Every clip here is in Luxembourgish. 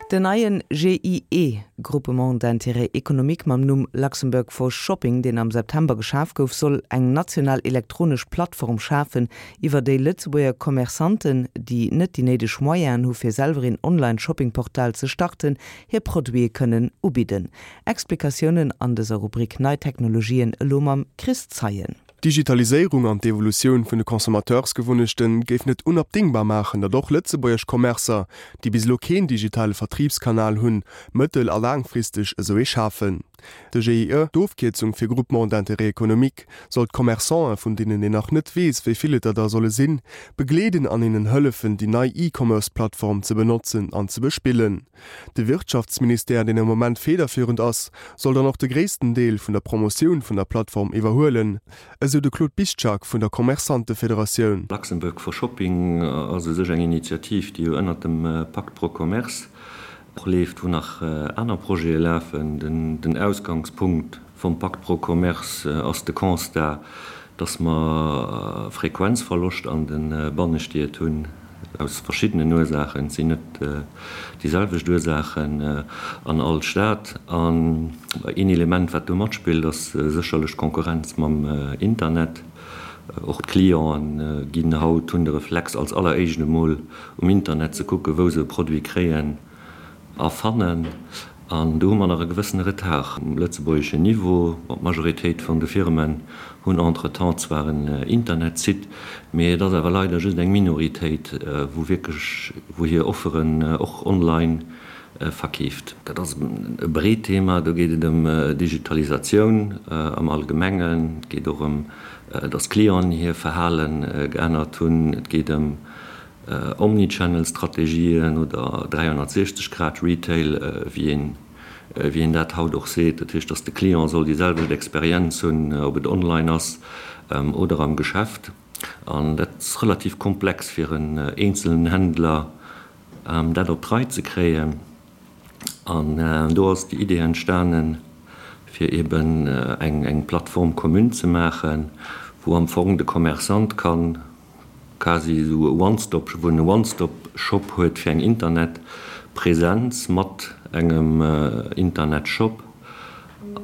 Den neien GIE, Groupement d'intérêt économique, mam Numm Luxembourg for Shopping, deen am September geschaf gouf, soll eng national elektronesch Plattform schafen, iwwer déi Lëtzebuerger Commerçanten, déi net déi néideg Moyenen hu fir selwer een Online-Shopping-Portal ze starten, hir Produite kënnen ubidden. Explikatiounen an dëser Rubrik Nei Technologien elo mam Chris Zeien. D'Digitaliséierung an d'Evolutioun vun de Consommateursgewunnechte géifen et unabdingbar maachen, datt och lëtzebuergesch Commercer, déi bis elo keen digitale Vertribskanal hunn, mëttel a laangfristeg esou ee schafen. De GIE, d'Ofkierzung fir Groupement d'intérêt économique, soll d'Commerçanten, vun deenen een nach net weess, wéi vill et der da solle sinn, begleeden an hinnen hëllefen, déi nei E-Commerce-Plattform ze benotzen an ze bespillen. De Wirtschaftsministère, deen am Moment federführend ass, soll dann och de gréissten Deel vun der Promotioun vun der Plattform iwwerhuelen, esou de Claude Biszczak vun der Commerçantefederatioun. Luxembourg for Shopping ass u sech eng Initiativ, déi jo ënnert dem Pacte pro Commerce och leeft, wou nach aner Projete lafen. Den Ausgangspunkt vum Pacte pro Commerce ass de Constat, dass mer Frequenzverloscht an de Bannestied hunn, aus verschiddenen Ursaachen. Et sinn net déi selwecht Ursaachen an all Stad. An een Element, wat do matspillt, ass sécherlech d'Konkurrenz mam Internet. Och d'Clienten ginn haut, hunn de Reflex, als alleréischt emol um Internet ze kucken, wou se e Produit kréien. A fannen. An do hu mer nach e gewëssene Retard um lëtzebuergeschen Niveau. Bon, d'Majoritéit vun de Firmen hunn entretemps zwar en Internetsite, mee et ass awer leider just eng Minoritéit, wou wierklech, wou hir Offeren och online verkeeft. Dat ass e breet Thema. Do geet et ëm Digitalisatioun am Allgemengen. Et geet och ëm, dass d'Clienten hir Verhale geännert hunn. Et geet ëm Omnichannel-Strategien oder 360 Grad Retail, wéi een, wéi een dat haut och seet. Dat heescht, dass de Client soll déi selwecht Experienz hunn, ob et online ass oder am Geschäft. An dat ass relativ komplex fir en eenzelen Händler, dat op d'Rei ze kréien. An do ass déi Idee entstanen, fir eeben eng Plateforme commune ze maachen, wou am Fong de Commerçant kann quasi esou e One-Stop, wou en e One-Stop-Shop huet fir eng Internetpräsenz mat engem Internetshop.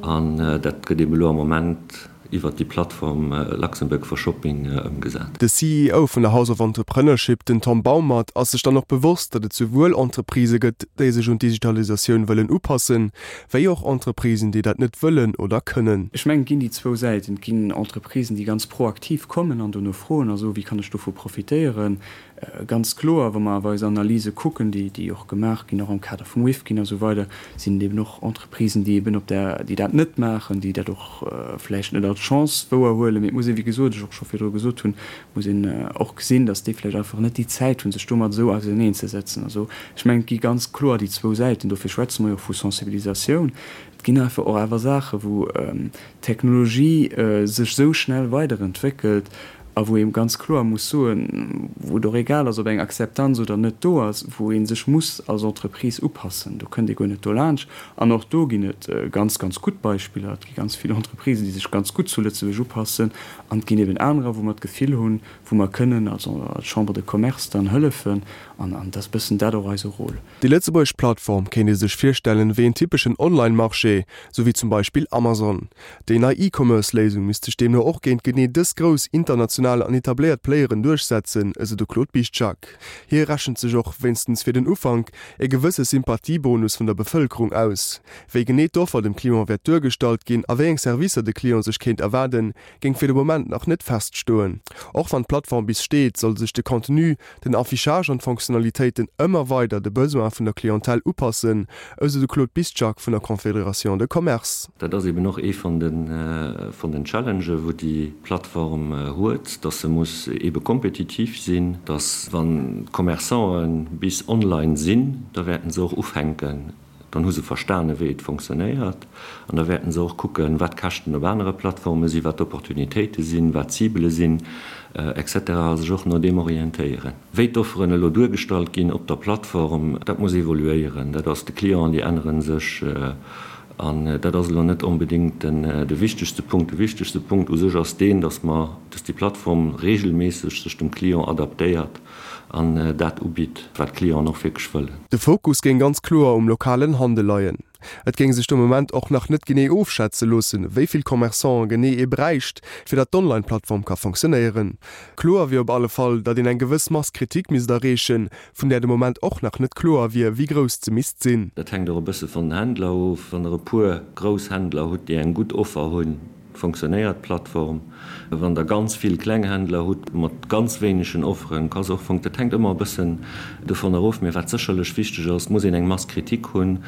An dat gëtt eeben elo am Moment iwwert déi Plattform Luxembourg for Shopping ëmgesat. De CEO vun der House of Entrepreneurship, den Tom Baumert, ass sech dann och bewosst, datt et souwuel Entreprisë gëtt, déi sech un d'Digitalisatioun wëllen upassen, wéi och Entreprisen, déi dat net wëllen oder kënnen. Ech mengen, et ginn déi zwou Säiten. Et ginn Entreprisen, déi ganz proaktiv kommen an dono froen a soen, wéi kann ech dovu profitéieren. Ganz kloer, wa mer awer eis Analyse kucken, déi, déi och gemaach ginn, och am Kader vum Rifkin a sou weider, sinn et eben och Entreprisen, déi eben op där, déi dat net maachen, déi dat och vläicht net als Chance wouerhuelen. Mee et muss ee, wéi gesot, ech och scho virdru gesot hunn, muss een och gesinn, datt déi vläicht einfach net déi Zäit hunn, sech domat esou auserneenzesetzen. Also ech mengen, et gi ganz kloer déi zwou Säiten. Dofir schwätze mer jo och vu Sensibilisatioun. Et ginn einfach och awer Saachen, wou d'Technologie sech esou schnell weiderentwéckelt a wou ee ganz kloer muss soen, wou et och egal ass, ob eng Akzeptanz oder net do ass, wou ee sech muss als Entreprise upassen. Do kënnt ee guer net dolaanscht. An och do ginn et ganz, ganz gutt Beispiller. Et gi ganz vill Entreprisen, déi sech ganz gutt zu Lëtzebuerg upassen. An et ginn eben anerer, wou mer d'Gefill hunn, wou mer kënnen als Chambre de Commerce dann hëllefen. An et ass e bëssen dat och eise Rôle. Déi lëtzebuergesch Plattform kéint ee sech virstellen wéi en typeschen Online-Marché, sou wéi zum Beispill Amazon. Déi nei E-Commerce-Léisung misst sech deemno och géint genee dës grouss international an etabléiert Playeren duerchsetzen, esou de Claude Biszczak. Hie rechent sech och, wéinstens fir den Ufank, e gewësse Sympathiebonus vun der Bevëlkerung aus. Wéi genee d'Offer dem Client wäert duergestallt ginn a wéi eng Servicer de Client sech kéint erwaarden, géing fir de Moment nach net feststoen. Och wann d'Plattform bis steet, soll sech de Contenu, den Affichage an d'Fonctionnalitéiten ëmmer weider de Besoin vun der Clientèle upassen, esou de Claude Biszczak vun der Confédération de Commerce. Dat ass eben och ee vun den Challengen, wou déi Plattform huet, dass se muss ebe kompetitiv sinn, dass wann d'Commerçanten bis online sinn, da wäerten se och ufänken, Dann hu se verstane wéi et fonctionnéiert an da wäerten se och kucken, wat d'Käschten op anere Plattforme sinn, wat d'Opportunitéite sinn, wat d'Cibele sinn, et cetera a sech och no deem orientéieren. Wéi d'Offeren elo duergestallt ginn op der Plattform, dat muss evoluéieren. Dat ass, de Client, déi ännere sech an dat ass elo net onbedéngt de wichtegste Punkt. De wichtegste Punkt u sech ass deen, dass mer, dass déi Plattform regelméisseg sech dem Client adaptéiert. An dat ubitt, wat d'Clienten och wierklech wëllen. De Fokus géing ganz kloer um lokalen Handel leien. Et géing sech de Moment och nach net genee ofschätze loossen, wéi vill Commerçanten genee ee bräicht, fir datt d'Online-Plattform ka fonctionnéieren. Kloer wier op alle Fall, datt een eng gewëss Masse critique misst erreechen, vun där de Moment och nach net kloer wier, wéi grouss se misst sinn. Dat hänkt och e bësse vun den Händler of. Wann Der e puer grouss Händler hutt, déi eng gutt Offer hunn, Fonctionnéiert d'Plattform? Wann der ganz vill kleng Händler hutt mat ganz wéinegen Offeren, ka se och fonc. Dat hänkt ëmmer e bëssen dovun erof. Mee wat sécherlech wichteg ass, et muss een eng Masse critique hunn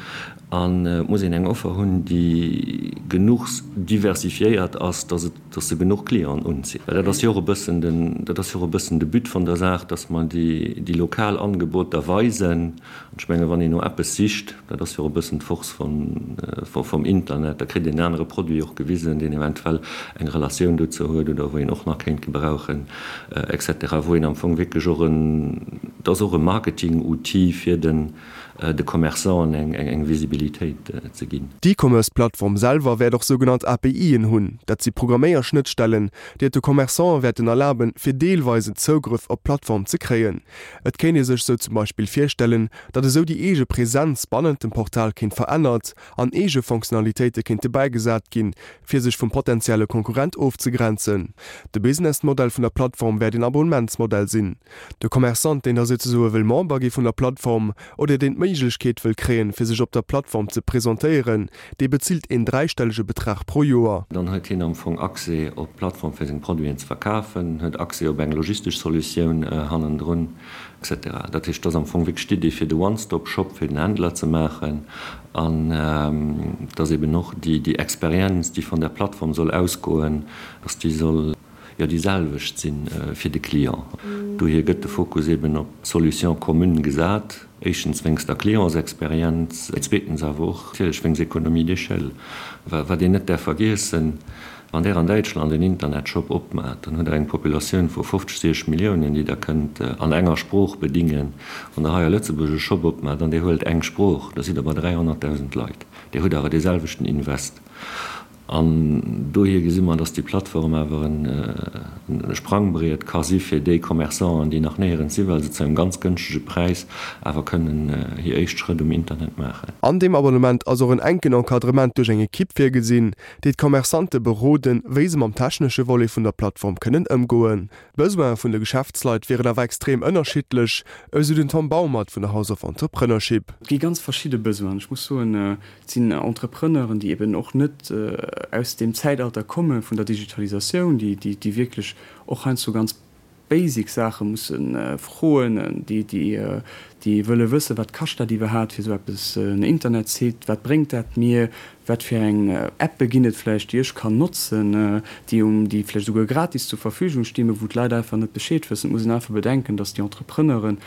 an et muss een eng Offer hunn, déi genuch diversifiéiert ass, dass et, dass se genuch Clienten unzitt. Well dat ass jo och e bëssen den, dat ass jo och e bëssen de But vun der Saach, dass mer déi, déi lokal Angeboter weisen. An ech mengen, wann een no eppes sicht, dat ass jo och e bëssen d'Force vum Internet, da kritt een en anere Produit och gewisen, deen eventuell eng Relatioun dozou huet oder wou een och nach kéint gebrauchen, et cetera, wou een am Fong wierklech och en, et ass och e Marketing-Outil fir den de Commerçanten eng Visibilitéit ze ginn. D'E-Commerce-Plattform selwer wäert och sougenannt APIen hunn, dat si Programméierschnëttstellen, déi et de Commerçanten wäerten erlaben, fir deelweisen Zougrëff op d'Plattform ze kréien. Et kéint ee sech sou zum Beispill virstellen, datt esou déi eege Präsenz bannent dem Portal kéint verännert an eege Fonctionnalitéite kéinte bäigesat ginn, fir sech vum potentielle Konkurrent ofzegrenzen. De Businessmodell vun der Plattform wäert een Abonnementsmodell sinn. De Commerçant, deen da souzesoe wëll Member gi vun der Plattform oder deen d'Méiglechkeet wëll kréien, fir sech op der Plattform ze presentéieren, Dee bezilt een dräistellege Betrag pro Joer. Dann huet hien am Fong Accès op d'Plattform fir seng Produiten ze verkafen, huet Accès op eng logistesch Solutioun hannendrun, et cetera. Dat heescht, et ass am Fong wierklech d'Idee fir de One-Stop-Shop fir den Händler ze maachen an dass eben och déi Experienz, déi von der Plattform soll ausgoen, dass déi soll, jo déi selwecht si fir de Client. Dohier gëtt de Fokus eben op d'Solution commune gesat, éischtens wéinst der Clientsexperienz, zweetens awer och natierlech wéinst Économie d'échelle. Wat een net däerf vergiessen, Wann Der an Däitschland en Internetshop opmaacht, dann hutt Der eng Populatioun vu 50, 60 Milliounen, déi Der kënnt an enger Sprooch bedingen. Wann Der hei a Lëtzebuerg e Shop opmaacht an Dir huelt eng Sprooch, da sidd Der bei 300.000 Leit. Dir hutt awer dee selwechten Invest. An dohier gesi mer, dass déi Plattform awer e Sprangbriet ka si fir déi Commerçanten, déi nach néierens si, well se zu engem ganz gënschtege Präis awer kënnen hir éischt Schrëtt um Internet maachen. An deem Abonnement ass och en enken Encadrement duerch eng Ekipp virgesinn, déi d'Commerçante beroden, wéi se mam technesche Volet vun der Plattform kënnen ëmgoen. D'Besoine vun de Geschäftsleit wieren awer extrem ënnerschiddlech, esou den Tom Baumert vun der House of Entrepreneurship. Et gi ganz verschidde Besoinen. Ech muss soen, Et sinn Entrepreneuren, déi eben och net aus deem Zäitalter komme vun der Digitalisatioun, déi wierklech och heiansdo ganz basic Saache musse froen, déi wëlle wëssen, wat kascht dat iwwerhaapt fir esou eppes, en Internetsite, wat bréngt dat mir, wat fir eng Appe ginn et vläicht, déi ech kann notzen, déi vläicht esouguer gratis zur Verfügung stinn, mä wou d'Leit einfach net Bescheed wëssen. Et muss een einfach bedenken, datt déi Entrepreneuren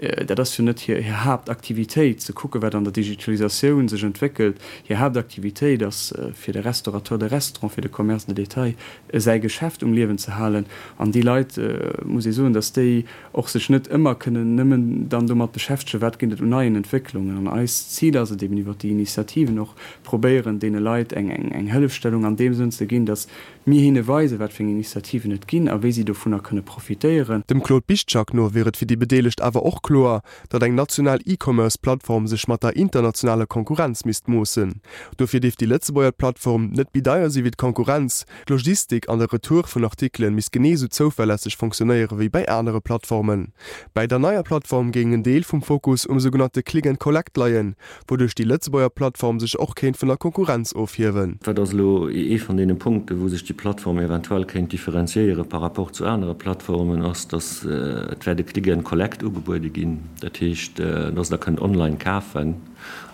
Dat ass jo net hir Haaptaktivitéit, ze kucken, wat an der Digitalisatioun sech entwéckelt. Hir Haaptaktivitéit ass, fir de Restaurateur de Restaurant, fir de Commerce de détail säi Geschäft um Liewen ze halen. An déi Leit, muss ee soen, datt déi och sech net ëmmer kënnen nëmmen dann domat beschäftegen, wat ginn et un neien Entwécklungen. An eist Zil ass et eben, iwwert déi Initiativen och probéieren, deene Leit eng Hëllefstellung an deem Sënn ze ginn, datt Mir hinne weisen, wat fir eng Initiativen et ginn a wéi si dovunner kënne profitéieren. Dem Claude Biszczak no wier et fir déi Bedeelegt awer och kloer, datt eng national E-Commerce-Plattform sech mat der internationaler Konkurrenz misst moossen. Dofir dierft déi Lëtzebuerger Plattform net méi deier si wéi d'Konkurrenz, d'Logistik an de Retour vun Artikele misst genee esou zouverlässeg fonctionnéiere wéi bäi anere Plattformen. Bäi der neier Plattform géing en Deel vum Fokus um sougenannte Click and Collect leien, wouduerch déi Lëtzebuerger Plattform sech och kéint vun der Konkurrenz ofhiewen. Wat ass elo ee vun deene Punkten, wou sech déi Plattform eventuell kéint differenziéiere par rapport zu anere Plattformen, ass, dass et wäert e Click and Collect ugebuede ginn. Dat heescht, dass Der kënnt online kafen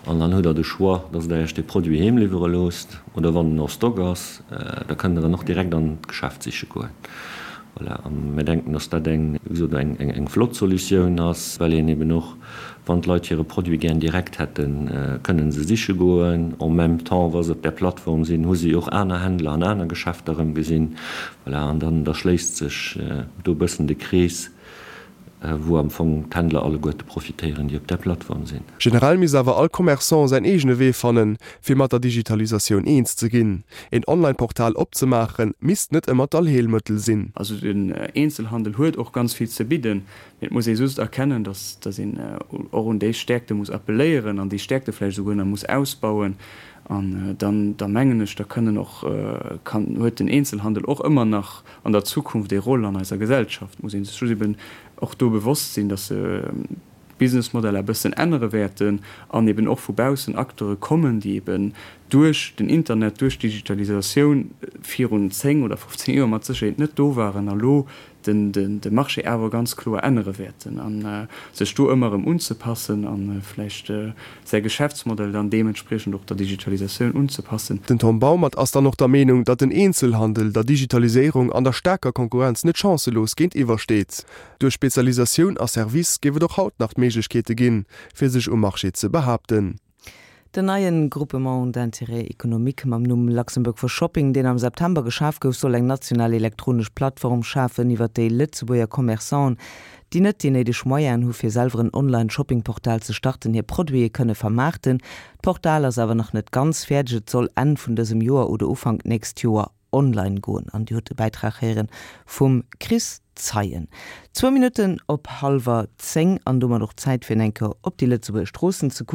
an dann hutt Der de Choix, dass Der Iech dee Produit heem liwwere loosst oder wann en en stock ass, da kënnt Der en och direkt an d'Geschäft siche goen. Voilà, a mir denken, dass dat eng, wéi gesot, eng flott Solutioun ass, well een eben och, wann d'Leit hire Produit gär direkt hätten, kënnen se siche goen. En même temps, wa se op där Plattform sinn, hu si och aner Händler an aner Geschäfter erëm gesinn. Voilà, an dann, da schléisst sech do e bëssen de Krees. wou am Fong d'Händler alleguerte profitéieren, déi op där Plattform sinn. Generell misst awer all Commerçant säin eegene Wee fannen, fir mat der Digitalisatioun eens ze ginn. Een Online-Portal opzemaachen, misst net ëmmer d'Allheelmëttel sinn. Also den Eenzelhandel huet och ganz vill ze bidden, mee et muss ee just erkennen, dass dass een och un déi Stäerkte muss appelléieren an déi Stäerkte vläicht esouguer nach muss ausbauen. An dann, da mengen ech, da kënnen och, kann, huet den Eenzelhandel och ëmmer nach an der Zukunft ee Rôle an eiser Gesellschaft. Muss ee sech just eben och do bewosst sinn, dass se d'Businessmodeller e bëssen ännere wäerten an eben och vu baussen Acteure kommen, déi eben duerch den Internet, duerch d'Digitalisatioun virun 10 oder 15 Joer mat Sécherheet net do waren a lo de Marché awer ganz kloer ännere wäerten a sech do ëmmer erëm unzepassen a vläicht säi Geschäftsmodell dann deementspriechend och der Digitalisatioun unzepassen. Den Tom Baumert ass dann och der Meenung, datt den Eenzelhandel der Digitaliséierung an der staarker Konkurrenz net chancelos géintiwwer steet. Duerch Spezialisatioun a Service géif et och haut nach d'Méiglechkeete ginn, fir sech um Marché ze behaapten. Den neien Groupement d'intérêt économique mam Numm Luxembourg for Shopping, deen am September geschaf gouf, soll eng national elektronesch Plattform schafen, iwwer déi Lëtzebuerger Commerçanten, déi net déi néideg Moyenen hu fir selwer en Online-Shopping-Portal ze starten, hir Produite kënne vermaarten. D'Portal ass awer nach net ganz fäerdeg, et soll Enn vun dësem Joer oder Ufank d'nächst Joer online goen. An Dir hutt de Bäitrag héieren vum Chris Zeien. Zwou Minutten op hallwer 10 an domat och Zäit fir en eng Kéier op déi Lëtzebuerger Stroossen ze kucken.